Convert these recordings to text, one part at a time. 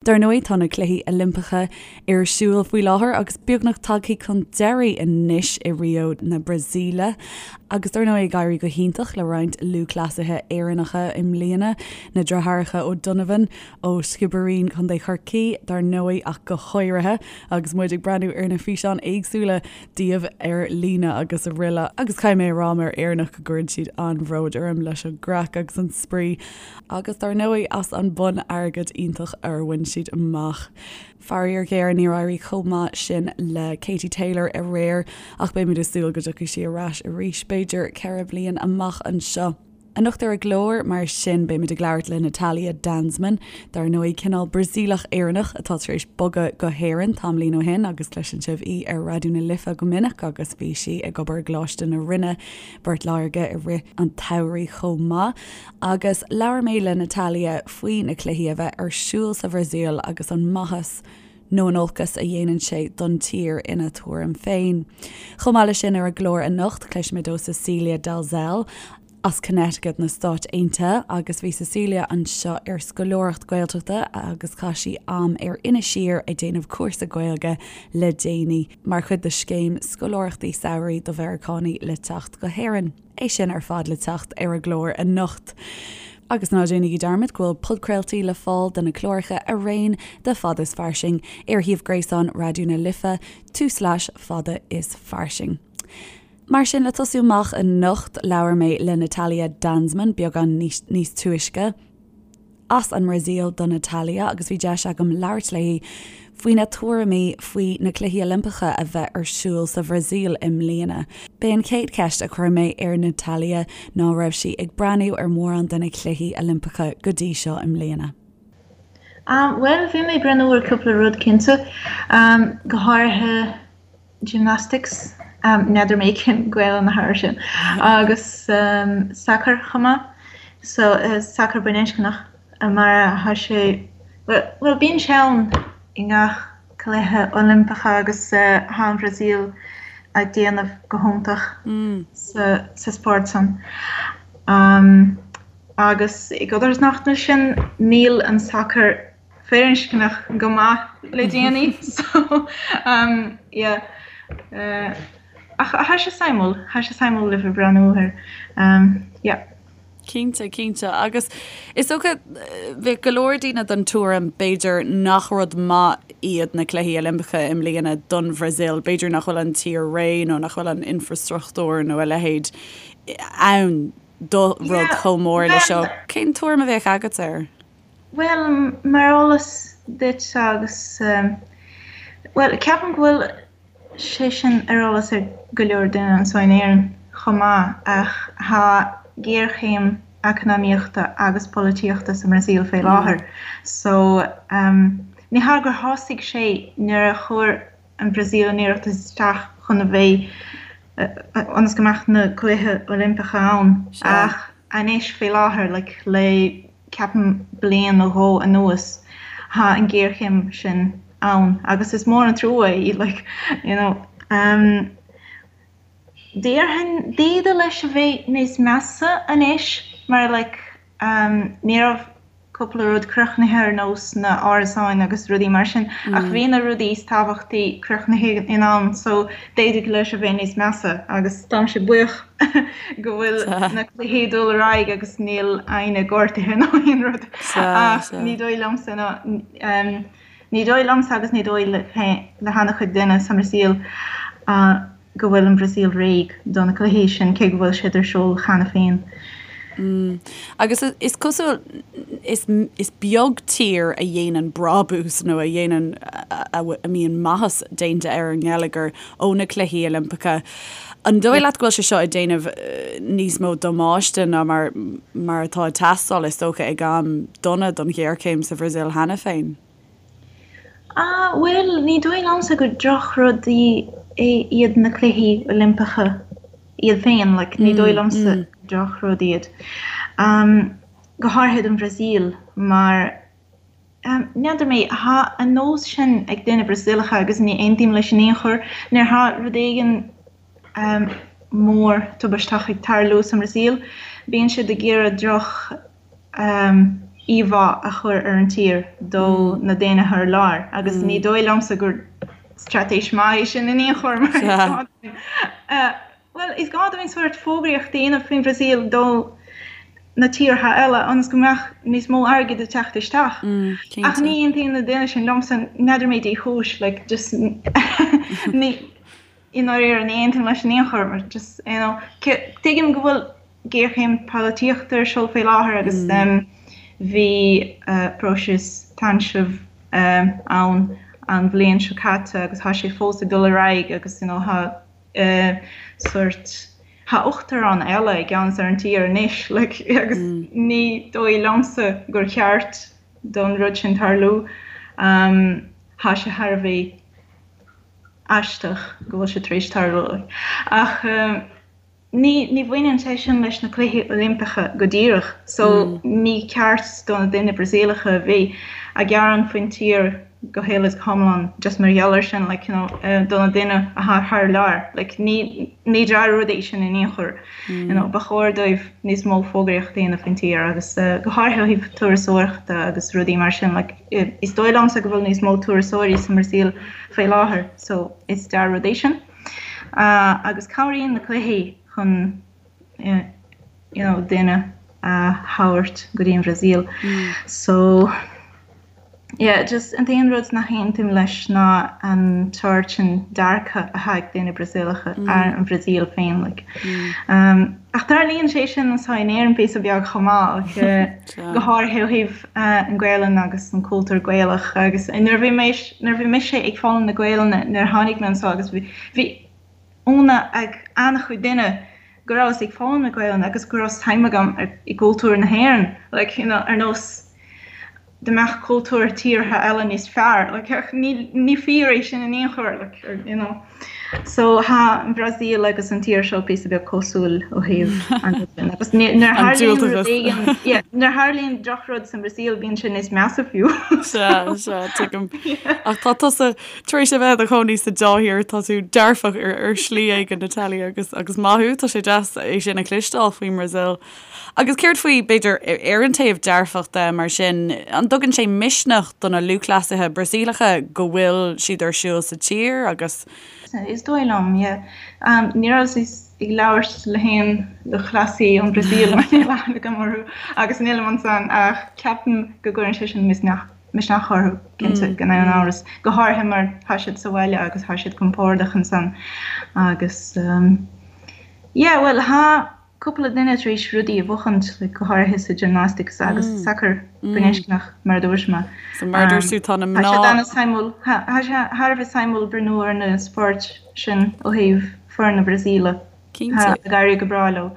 Dar ndóigh, tá na Cluichí Oilimpeacha ar siúl faoi láthair agus beagnach tagtha chun deiridh anois i Rio na Brasaíle. Agus dar ndóigh ag éirí go hiontach le roinnt lúthchleasaithe Éireannacha i mbliana, na deartháireacha O'Donovan ó Sciobairín, Contae Chorcaí, dar ndóigh ach go háirithe, agus muid ag breathnú ar na físeáin éagsúla díobh ar líne agus araile. Agus caithfidh mé a rá mar Éireannach go gcuireann siad an-bhród orm leis an gcraic agus an spraoi. Agus dar ndóigh as an bonn airgid iontach a bhain siad amach. Faraor géar níor éirigh chomh maith sin le Katie Taylor aréir ach beimid ag súil go dtiocfaidh sí ar ais arís b'fhéidir 4 bliain amach anseo. Anocht ar an gclár mar sin beimid ag labhairt le Natalia Danzmann, dar ndóigh cineál Brasaíleach Éireannach atá tar éis bogadh go hÉirinn tamaillín ó shin agus cloiseann sibh í ar Raidió na Life go minic agus bhí sí ag obair i gColáiste na Rinne, Port Láirge i rith an tsamhraidh chomh maith. Agus labhair mé le Natalia faoi na cluichí a bheith ar siúl sa Bhrasaíl agus an maitheas nó an olcas a dhéanann sé don tír ina tuairim féin. Chomh maith leis sin ar an gclár anocht cloisfimid ó Cecilia Dalzell as Connecticut na Stáit Aontaithe agus bhí Cecilia anseo ar scoláireacht Gaeltachta agus chaith sí am ar Inis Oírr ag déanamh cúrsa Gaeilge le déanaí mar chuid de scéim scoláireachtaí samhraidh do Mheiriceánaigh le teacht go hÉirinn. É sin ar fad le teacht ar an gclár anocht. Agus ná déanaigí dearmad go bhfuil podchraoltaí le fáil de na cláracha araon de Fada is Fairsing ar shuíomh gréasáin Raidió na Life, tulslais fada is fairsing. Mar sin, le tosú amach anocht, labhair mé le Natalia Danzmann beagán níos túisce. As an mBrasaíl do Natalia agus bhí deis agam labhairt léi faoina tuairimí faoi na Cluichí Oilimpeacha a bheith ar siúl sa Bhrasaíl i mbliana. B'é an chéad cheist a chuir mé ar Natalia ná raibh sí ag breathnú ar mhórán de na Cluichí Oilimpeacha go dtí seo i mbliana. Bhuel, bhí mé ag breathnú ar cúpla rud cinnte, go háirithe gymnastics, n'fheadar mé cén Gaelainn atá air sin, agus sacar chomh maith, so sacar baininscneach mar tá sé, bhuel bíonn sé ann i ngach cluiche Oilimpeacha agus tá an Bhrasaíl ag déanamh go hiontach sa spórt san. Agus i gcodarsnacht leis sin níl an sacar firinscneach go maith le déanaí so um yeah uh ach thá sé suimiúil, thá sé suimiúil le bheith breathnú air um yeah. Cinnte, cinnte. Agus is dócha, bheadh go leor daoine den tuairim, b'fhéidir, nach rud maith iad na Cluichí Oilimpeacha i mbliana don Bhrasaíl. B'fhéidir nach bhfuil an tír réidh nó nach bhfuil an infreastruchtúr nó a leithéid ann do rud chomh mór le seo. Cén tuairim a bheadh agat air? Bhuel, mar eolas duit agus, bhuel, ceapaim go bhfuil sé sin ar eolas ag go leor duine anseo in Éirinn chomh maith, ach tá géarchéim eacnamaíochta agus polaitíochta sa mBrasaíl fé láthair. So, ní hea gur thosaigh sé nuair a chuir an Bhrasaíl an iarratas isteach chun a bheith, ionas go mbeadh na Cluichí Oilimpeacha ann, ach Anois faoi láthair, like, le ceapaim bliain nó dhó anuas, tá an ghéarchéim sin ann agus is mór an trua é, like, you know. Um, déarfainn, d'fhéadfadh leis a bheith níos measa anois mar, like, um, ní raibh cúpla rud críochnaithe ar nós na árasáin agus rudaí mar sin ach bhí na rudaí is tábhachtaí críochnaithe in am so d'fhéadfadh leis a bheith níos measa agus táimse buíoch go bhfuil na cluichí ag dul ar aghaidh agus níl éinne gortaithe nó aon rud ach ní dóigh liomsa ná ní dóigh liomsa agus ní dóigh le han-chuid duine sa mBrasaíl go bhfuil an Bhrasaíl réidh do na cluichí sin, cé go bhfuil siad ar siúl cheana féin. Agus is cosúil, is is beag tír a dhéanann brabús nó a dhéanann, a mbíonn maitheas déanta ar an ngeilleagar ó na Cluichí Oilimpeacha. An dóigh leat go bhfuil sé seo ag déanamh níos mó damáiste ná mar mar atá ag teastáil, is dócha, ag am dona don ghéarchéim sa Bhrasaíl cheana féin? Ah, bhuel, ní dóigh liomsa gur drochrudaí iad na Cluichí Oilimpeacha iad féin, like, ní dóigh liomsa gur drochrud iad. Go háirithe don Bhrasaíl, mar, n'fheadar mé, tá an nós sin ag daoine Brasaíleacha agus ní aontaím leis in aon chor, nuair atá rud éigin mór tubaisteach ag tarlú sa mBrasaíl, bíonn siad ag iarraidh droch. Íomhá a chur ar an tír do na daoine thar lear agus ní dóigh liomsa gur straitéis maith é sin in aon chor mar is gá dúinn bhuel is gá dúinn sórt fógraíocht a dhéanamh faoin Bhrasaíl do na tíortha eile ionas go mbeadh níos mó airgid ag teacht isteach. Ach ní aontaíonn na daoine sin liomsa, n'fheadar mé dé chúis like just ní i ndáiríre ní aontaím leis in aon chor mar just you know tuigim go bhfuil géarchéim polaitíochta ar siúl faoi láthair agus bhí próiseas táinsimh ann an bhliain seo caite agus tá sé fós ag dul ar aghaidh agus you know tá sórt tá uachtarán eile i gceannas ar an tír anois like agus ní dóigh liomsa gur cheart don rud sin tarlú. Tá sé thar a bheith aisteach go bhfuil sé tar éis tarlú ach Ní ní bhaineann sé sin leis na Cluichí Oilimpeacha go díreach so ní ceart do na daoine Brasaíleacha a bheith ag gearán faoin tír go huile is go hiomlán just mar gheall air sin like you know do na daoine atá thar lear like ní ní dea-rud é sin in aon chor you know ba chóir dóibh níos mó fógraíocht a dhéanamh faoin tír agus go háirithe ó thaobh turasóireachta agus rudaí mar sin like is dóigh liomsa go bhfuil níos mó turasóirí sa mBrasaíl faoi láthair so is dea-rud é sin. Agus cabhraíonn na cluichí chun you know daoine a thabhairt go dtí an Bhrasaíl. So yeah just an t-aon rud nach aontaím leis ná an sórt sin dearcadh atá ag daoine Brasaíleacha ar an Bhrasaíl féin like. Ach tarlaíonn sé sin anseo in Éirinn píosa beag chomh maith like go háirithe ó thaobh an Ghaelainn agus an cultúr Gaelach agus nuair a bhí mé nuair a bhí mise ag foghlaim na Gaelainne nuair a tháinig mé anseo agus bhí bhí ionadh ag an-chuid duine go rabhas ag foghlaim na Gaelainne agus go raibh suim agam i gcultúr na hÉireann like you know ar nós dá mbeadh cultúr tíortha eile níos fearr like ach ní ní fíor é sin in aon chor like you know. So tá an Bhrasaíl agus an tír seo píosa beag cosúil ó thaobh an rud sin. Agus nuair a tharlaíonn rud éigin, yeah, nuair a tharlaíonn drochrud sa mBrasaíl bíonn sé níos measa fiú. Sea, sea, tuigim. Ach tá tusa tar éis a bheith i do chónaí sa dá thír, tá tú dearfach ar, ar shlí éigin, Natalia, agus, agus maith thú, tá sé deas é sin a chloisteáil faoin mBrasaíl. Agus céard faoi, b'fhéidir, ar an taobh dearfach de, mar sin, an dtugann sé misneach do na lúthchleasaithe Brasaíleacha go bhfuil siad ar siúl sa tír agus. Is dóigh liom, yeah. Ní rabhas ag labhairt le haon lúthchleasaí ón Bhrasaíl mar níl aithne agam orthu agus nílim ansan ach ceapaim go gcuireann sé sin misneach misneach orthu, cinnte, gan aon amhras, go háirithe mar tá siad sa bhaile agus tá siad compordach ansan agus yeah, bhuel, tá cúpla duine tar éis rudaí a bhuachaint, like, go háirithe sa gymnastics agus sa sacar baininscneach, mar a dúirt mé. So mar a dúirt tú, tá na mná. Tá sé an-suimiúil, tá sé thar a bheith suimiúil breathnú ar na spóirt sin ó thaobh foireann na Brasaíle. Cinnte. Tá ag éirí go breá leo.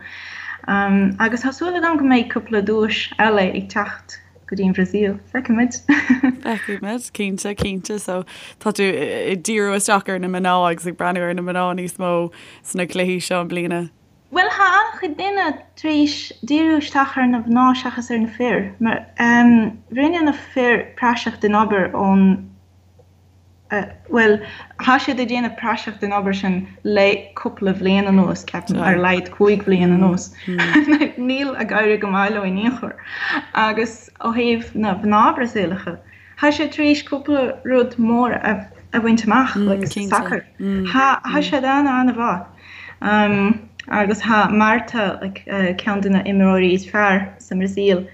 Agus tá súil agam go mbeidh cúpla duais eile ag teacht go dtí an Bhrasaíl. Feicfimid. Feicfimid, cinnte, cinnte. So tá tú ag díriú isteach ar na mná agus ag breathnú ar na mná níos mó sna cluichí seo i mbliana. Bhuel, tá an-chuid duine tar éis díriú isteach ar na mná seachas ar na fir, mar rinne na fir praiseach den obair ón, bhuel, tá siad ag déanamh praiseach den obair sin le cúpla bhliain anuas, ceapaim, ar a laghad 5 bhliain anuas. Níl ag éirí go maith leo in aon chor. Agus ó thaobh na mná Brasaíleacha, Tá siad tar éis cúpla rud mór a bhaint amach, like sa sacar. Tá siad an-an-mhaith. Agus tá Marta, like ceann de na imreoirí is fearr sa mBrasaíl,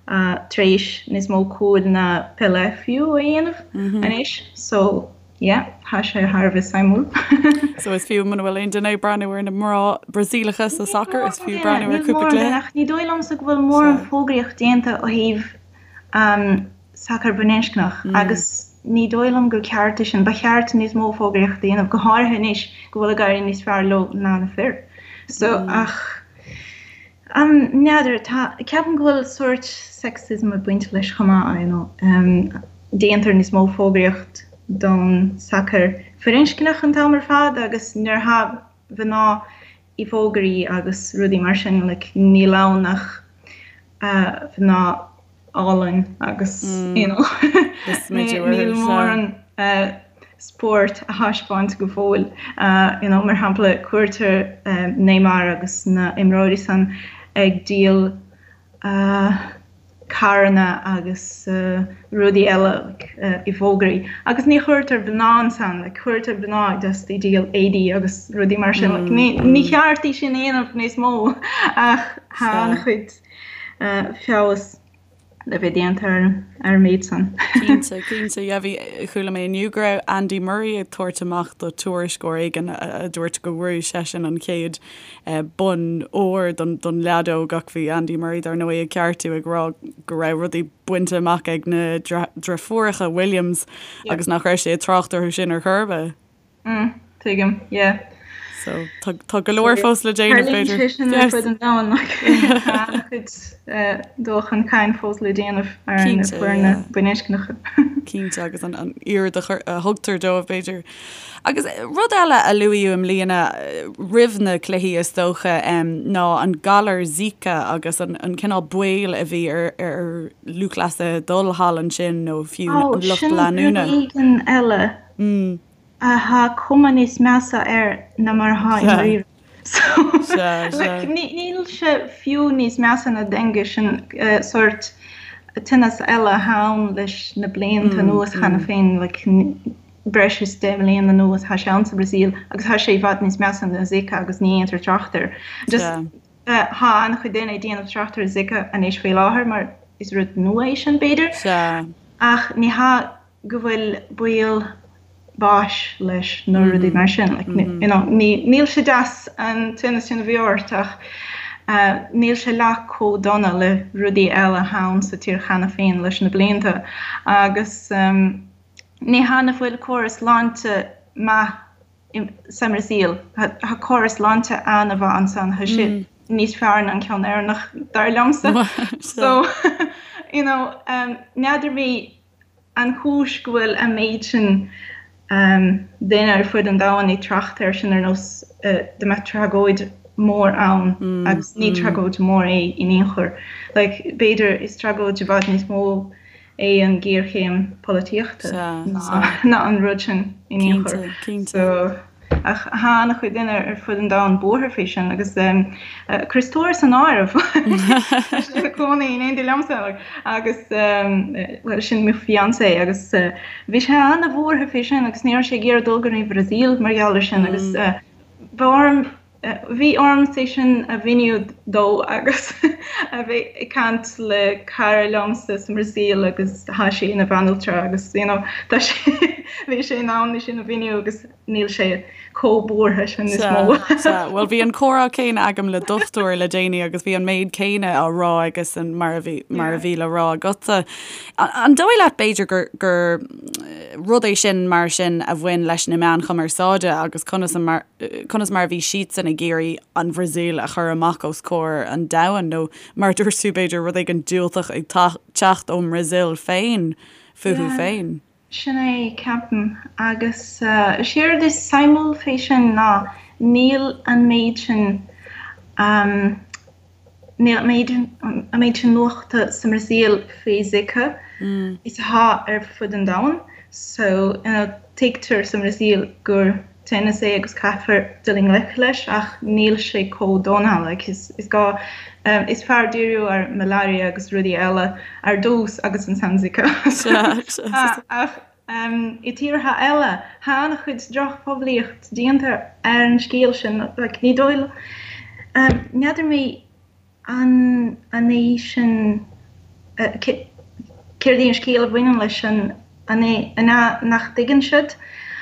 tar éis níos mó cúil ná Pelé fiú a dhéanamh anois. So, yeah, tá sé thar a bheith suimiúil. So is fiú muna bhfuil aon duine ag breathnú ar na mná Brasaíleacha sa sacar, is fiú breathnú ar cúpla cluiche. Ach ní dóigh liomsa go bhfuil mórán fógraíocht déanta ó thaobh sacar baininscneach agus ní dóigh liom gur ceart é sin. Ba cheart níos mó fógraíochta a dhéanamh, go háirithe anois go bhfuil ag éirí níos fearr leo ná na fir. So, ach n'fheadar, tá, ceapaim go bhfuil sórt sexism ag baint leis chomh maith, you know. Déantar níos mó fógraíocht don sacar firinscneach an t-am ar fad agus nuair atá mná i bhfógraí agus rudaí mar sin, like, níl ann ach mná álainn agus you know níl mórán spórt á thaispeáint go fóill. You know, mar shampla, cuirtear Neymar agus na imreoirí san ag díol. carranna agus rudaí eile like i bhfógraí agus ní chuirtear mná ansan like cuirtear mná just ag díol éadaí agus rudaí mar sin like ní ní cheart é sin a dhéanamh níos mó ach tá an-chuid feabhas le bheith déanta ar ar an méid san. Cinnte, cinnte. Yeah, bhí, chuala mé inniu go raibh Andy Murray ag tabhairt amach do tuairisceoir éigin a dúirt go bhfuair seisean an chéad bonn óir don leadóg ach bhí Andy Murray dar ndóigh ag ceartú ag rá go raibh rudaí bainte amach ag na deirfiúracha Williams agus nach raibh sé ag trácht orthu sin ar chor ar bith. Mm, tuigim, yeah. So tá tá go leor fós le déanamh b'fhéidir. Tarlaíonn sé sin ar fud an domhain like tá an-chuid dul chun cinn fós le déanamh ar na foirne baininscneacha. Cinnte agus an an aird a thugtar dóibh b'fhéidir. Agus rud eile a luaíodh i mbliana roimh na cluichí is dócha ná an galar Zika agus an cineál baol a bhí ar ar lúthchleasaithe dul thall ansin nó fiú an lucht leanúna. Ó, sin rud éigin eile atá cuma níos measa air ná mar atá i ndáiríre. So, like, níl sé fiú níos measa ná dengue, sin sórt tinneas eile atá ann leis na blianta anuas cheana féin, like, breis is 10 mbliana anuas tá sé ann sa Bhrasaíl agus tá sé i bhfad níos measa ná Zika agus ní dhéantar trácht air. Just tá an-chuid daoine ag déanamh trácht ar Zika anois faoi láthair mar is rud nua é sin b'fhéidir. Ach ní hea go bhfuil baol báis leis nó rudaí mar sin. Like, you know, ní, níl sé deas an tinneas sin a bheith ort ach níl sé leath chomh dona le rudaí eile atá ann sa tír cheana féin leis na blianta agus Ní hea nach bhfuil córas sláinte maith sa mBrasaíl. Tá córas sláinte an-mhaith ansan. Tá sé níos fearr ná an ceann Éireannach, dar liomsa. So, you know, n'fheadar mé an chúis go bhfuil an méid sin daoine ar fud an domhain ag trácht air sin ar nós dá mbeadh tragóid mór ann agus ní tragóid mhór é in aon chor. Like, b'fhéidir is tragóid i bhfad níos mó é an ghéarchéim polaitíochta ná an rud sin in aon chor. So, ach tá an-chuid daoine ar fud an domhain buartha faoi sin agus Chris Torr san áireamh. Tá sé ina chónaí in éindí liomsa agus bhuel sin mo fiancé agus bhí sé an-bhuartha faoi sin agus ní raibh sé ag iarraidh dul go dtí an Bhrasaíl mar gheall ar sin agus bhí orm Bhí orm é sin a mhíniú dó agus a bheith ag caint le cara liomsa sa mBrasaíl agus tá sí ina bhanaltra agus you know tá sé bhí sé in ann é sin a mhíniú agus níl sé chomh buartha sin níos mó. Sea, bhuel bhí an comhrá céanna agam le dochtúir le déanaí agus bhí an méid céanna á rá aigesan mar a bhí mar a bhí le rá agatsa. An dóigh leat b'fhéidir gur gur rud é sin mar sin a bhain leis na meáin chumarsáide agus conas a mar conas mar a bhí siadsan ag iarraidh an Bhrasaíl a chur amach os comhair an domhain, nó mar a dúirt tú, b'fhéidir, rud éigin diúltach ag teacht ón mBrasaíl féin fúthu féin. Sin é, ceapaim. Agus séard is suimiúil fé sin ná níl an méid sin, Níl an méid sin nuachta sa mBrasaíl faoi Zika is atá ar fud an domhain so tuigtear sa mBrasaíl gur tinneas é agus caithfear dul i ngleic leis ach níl sé chomh dona like is gá is fearr díriú ar malaria agus rudaí eile ar dtús agus ansan Zika ach I tíortha eile, tá an-chuid drochphoiblíocht déanta ar an scéal sin. Like, ní dóigh liom, n'fheadar mé an an é sin, céard é an scéal a bhaineann leis sin, an é an ea nach dtuigeann siad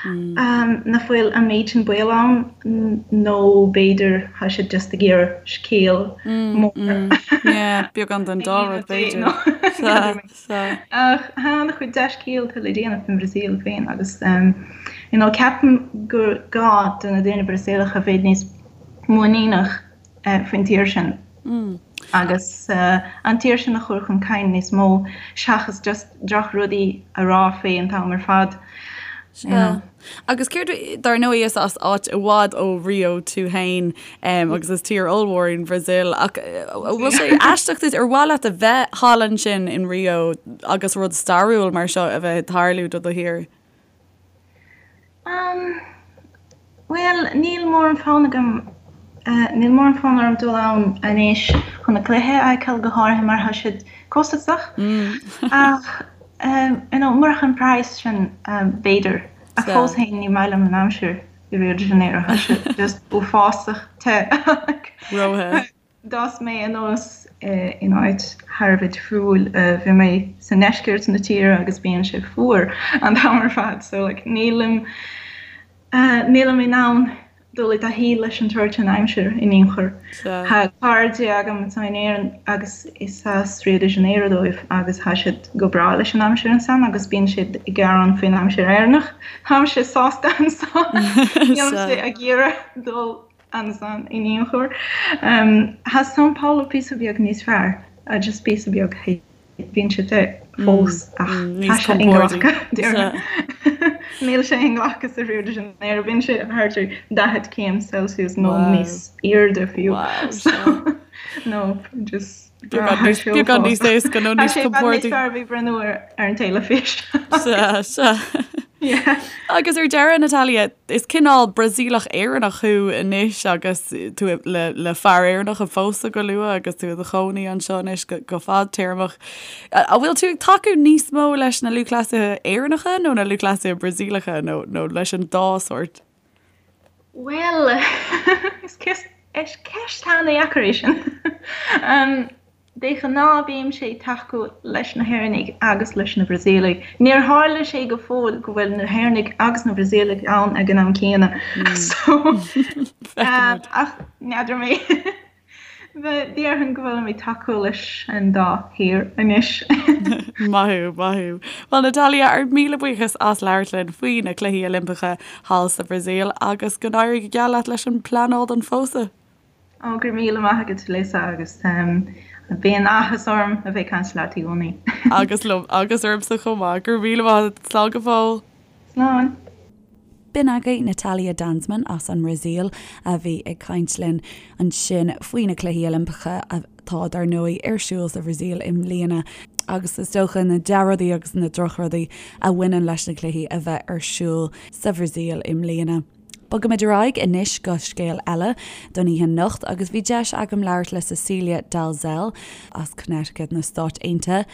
nach bhfuil an méid sin baol ann nó b'fhéidir tá siad just ag iarraidh scéal mór Yeah, beagán den dá rud b'fhéidir. Sea, sea. Ach tá an-chuid dea-scéalta le déanamh faoin Bhrasaíl féin agus you know ceapaim gur gá do na daoine Brasaíleacha bheith níos muiníneach faoin tír sin agus an tír sin a chur chun cinn níos mó seachas just drochrudaí a rá faoi an t-am ar fad. You know. Agus céard, dar ndóigh is as áit i bhfad ó Rio tú féin agus is tír ollmhór í an Bhrasaíl ach bhfuil sé aisteach duit, ar mhaith leat a bheith thall ansin in Rio agus rud stairiúil mar seo a bheith ag tarlú do do thír? Bhuel, níl mórán fonn agam, níl mórán fonn orm dul ann anois chun na cluiche a fheiceáil, go háirithe mar tá siad. costasach. Ach you know murach an praghas sin b'fhéidir. Ach fós féin ní maith liom an aimsir i Rio de Janeiro, tá sé just uafásach te. Róthe. D'fhás mé anuas in áit thar a bheith difriúil. Bhí mé sa ndeisceart na tíre agus bíonn sé fuar an t-am ar fad so like nílim nílim in ann dul i dtaithí leis an tsórt sin aimsir in aon chor. Tá cairde agam atá in Éirinn agus is as Rio de Janeiro dóibh agus tá siad go breá leis an aimsir ansan agus bíonn siad ag gearán faoin aimsir Éireannach. Táimse sásta ansan. Nílimse ag iarraidh dul ansan in aon chor. Tá São Paulo píosa beag níos fearr, just píosa beag, bíonn sé te fós ach tá sé inghlactha, déarfainn. Níl sé inghlactha sa Rio de Janeiro, bíonn sé thart ar 40 céim Celsius nó níos airde fiú. So, no, just Beagán níos éasca nó níos compórdaí. Tá sé fearr bheith breathnú ar an teilifís. Sea, sea. Agus ar deireadh, Natalia, is cineál Brasaíleach Éireannach thú anois agus tú le le fear Éireannach a phósadh go luath agus tú i do chónaí anseo anois go go fadtéarmach. An bhfuil tú ag tacú níos mó leis na lúthchleasaithe Éireannacha nó na lúthchleasaithe Brasaíleacha nó nó leis an dá sórt? Bhuel, is ceist an-dheacair é sin. De ghnáth bímse ag tacú leis na hÉireannaigh agus leis na Brasaíligh. Níor tharla sé go fóill go bhfuil na hÉireannaigh agus na Brasaíligh ann ag an am céanna. So, ach n'fheadar mé. Déarfainn go bhfuilim ag tacú leis an dá thír anois. Maith thú, maith thú. Bhuel Natalia, ár míle buíochas as labhairt linn faoi na Cluichí Oilimpeacha thall sa Bhrasaíl agus go n-éirí go geal leat leis an bpleanáil don phósadh. Ó, go raibh míle maith agat Lisa agus bíonn áthas orm a bheith ag caint leat i gcónaí. Agus liom, agus ormsa chomh maith. Go raibh míle maith agat. Slán go fóill. Slán. B'in agaibh Natalia Danzmann as an mBrasaíl a bhí ag caint linn ansin faoi na Cluichí Oilimpeacha atá, dar ndóigh, ar siúl sa Bhrasaíl i mbliana agus is dócha na dea-rudaí agus na drochrudaí a bhaineann leis na cluichí a bheith ar siúl sa Bhrasaíl i mbliana. Bogaimid ar aghaidh anois go scéal eile don oíche anocht agus bhí deis agam labhairt le Cecilia Dalzell as Connecticut na Stáit Aontaithe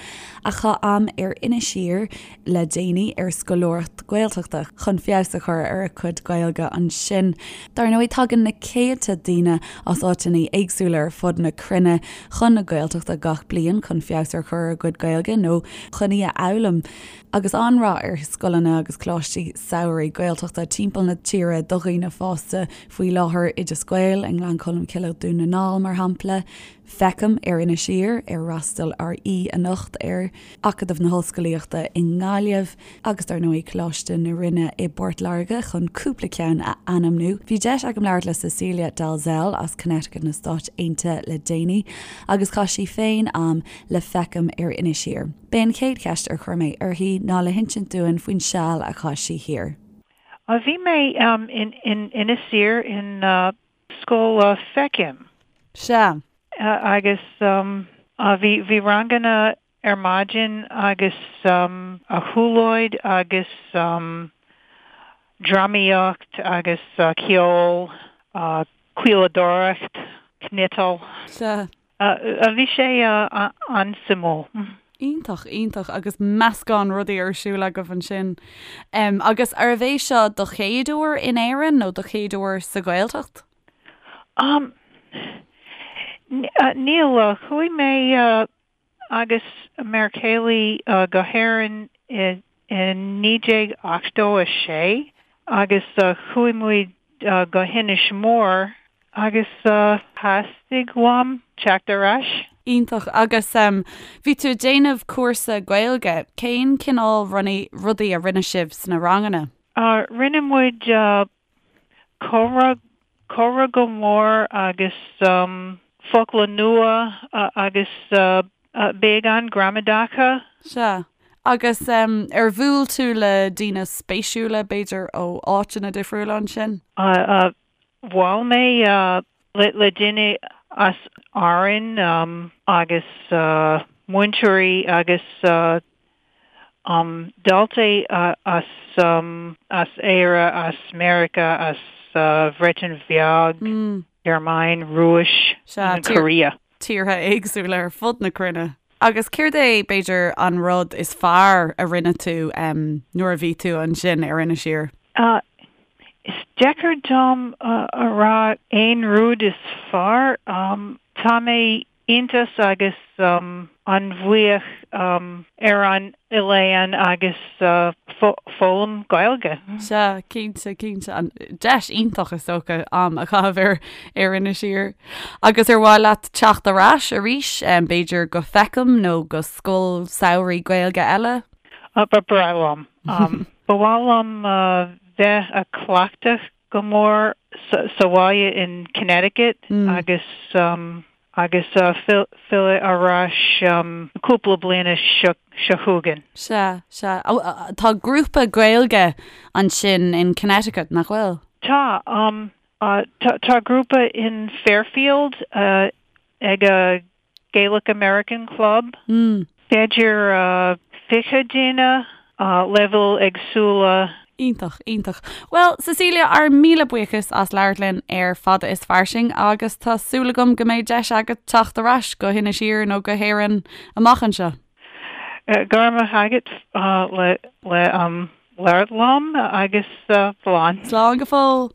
a chaith am ar Inis Oírr le déanaí ar scoláireacht Gaeltachta chun feabhas a chur ar a cuid Gaeilge ansin. Dar ndóigh, tagann na céadta daoine as áiteanna éagsúla ar fud na cruinne chun na Gaeltachta gach bliain chun feabhas ar chur ar a gcuid Gaeilge nó chun í a fhoghlaim. Agus an-rath ar scoileanna agus coláistí samhraidh Gaeltachta timpeall na tíre do dhaoine fásta faoi láthair, Oideas Gael i nGleann Cholm Cille, Dún na nGall, mar shampla. Feicim ar Inis Oírr, ar fhreastail ár aoi anocht air, Acadamh na hOllscolaíochta i nGaillimh agus dar ndóigh Coláiste na Rinne i bPort Láirge chun cúpla ceann a ainmniú. Bhí deis agam labhairt le Cecilia Dalzell as Connecticut na Stáit Aontaithe le déanaí agus chaith sí féin am le Feicim ar Inis Oírr. B'é an chéad cheist ar chuir mé uirthi ná le hinsint dúinn faoin seal a chaith sí thiar. Bhí mé in Inis Oírr in Scoil Feicim. Sea. Agus bhí, bhí ranganna ar maidin agus siúlóid agus drámaíocht agus ceol, caoladóireacht, cniotáil. Sea. Bhí sé an-suimiúil. Iontach, iontach agus meascán rudaí ar siúl agaibh ansin. Agus arbh é seo do chéad uair in Éirinn nó do chéad uair sa Ghaeltacht? Níl, chuaigh mé agus m'fhear céile go hÉirinn i 1986 agus chuaigh muid go hInis Mór agus theastaigh uaim teacht ar ais. Iontach. Agus bhí tú ag déanamh cúrsa Gaeilge. Cén cineál rudaí a rinne sibh sna ranganna? Rinne muid comhrá, comhrá go mór agus focla nua agus beagán gramadacha. Sea. Agus ar bhuail tú le daoine spéisiúla, b'fhéidir ó áiteanna difriúla ansin? Bhuail mé le duine as Árainn agus múinteoirí agus daltaí as as Éire, as Meiriceá, as Bhreatain Bheag, Gearmáin, Rúis, Sea, Korea. Tíortha éagsúla ar fud na cruinne. Agus céard é, b'fhéidir, an rud is fearr a rinne tú nuair a bhí tú ansin ar Inis Oírr? Is deacair dom a rá aon rud is fearr. Tá mé iontach agus an-bhuíoch ar an oileán agus foghlaim Gaeilge. Sea, cinnte, cinnte. An deis iontach is dócha am a chaitheamh ar ar Inis Oírr. Agus ar mhaith leat teacht ar ais arís, b'fhéidir go Fécamp nó go scoil samhraidh Gaeilge eile? Ba bhreá liom. Ba mhaith liom bheith a cleachtadh go mór sa bhaile in Connecticut agus agus filleadh ar ais cúpla bliana seo chugainn. Sea, sea. Tá grúpa Gaeilge ansin in Connecticut, nach bhfuil? Tá. Tá grúpa in Fairfield ag a Gaelic American Club. B'fhéidir 20 duine, leibhéil éagsúla. Iontach, iontach. Bhuel, Cecilia, ár míle buíochas as labhairt linn ar Fada is Fairsing agus tá súil agam go mbeidh deis agat teacht ar ais go hInis Oírr nó go hÉirinn amach anseo. Go raibh maith agat le le labhairt liom agus slán. Slán go fóill.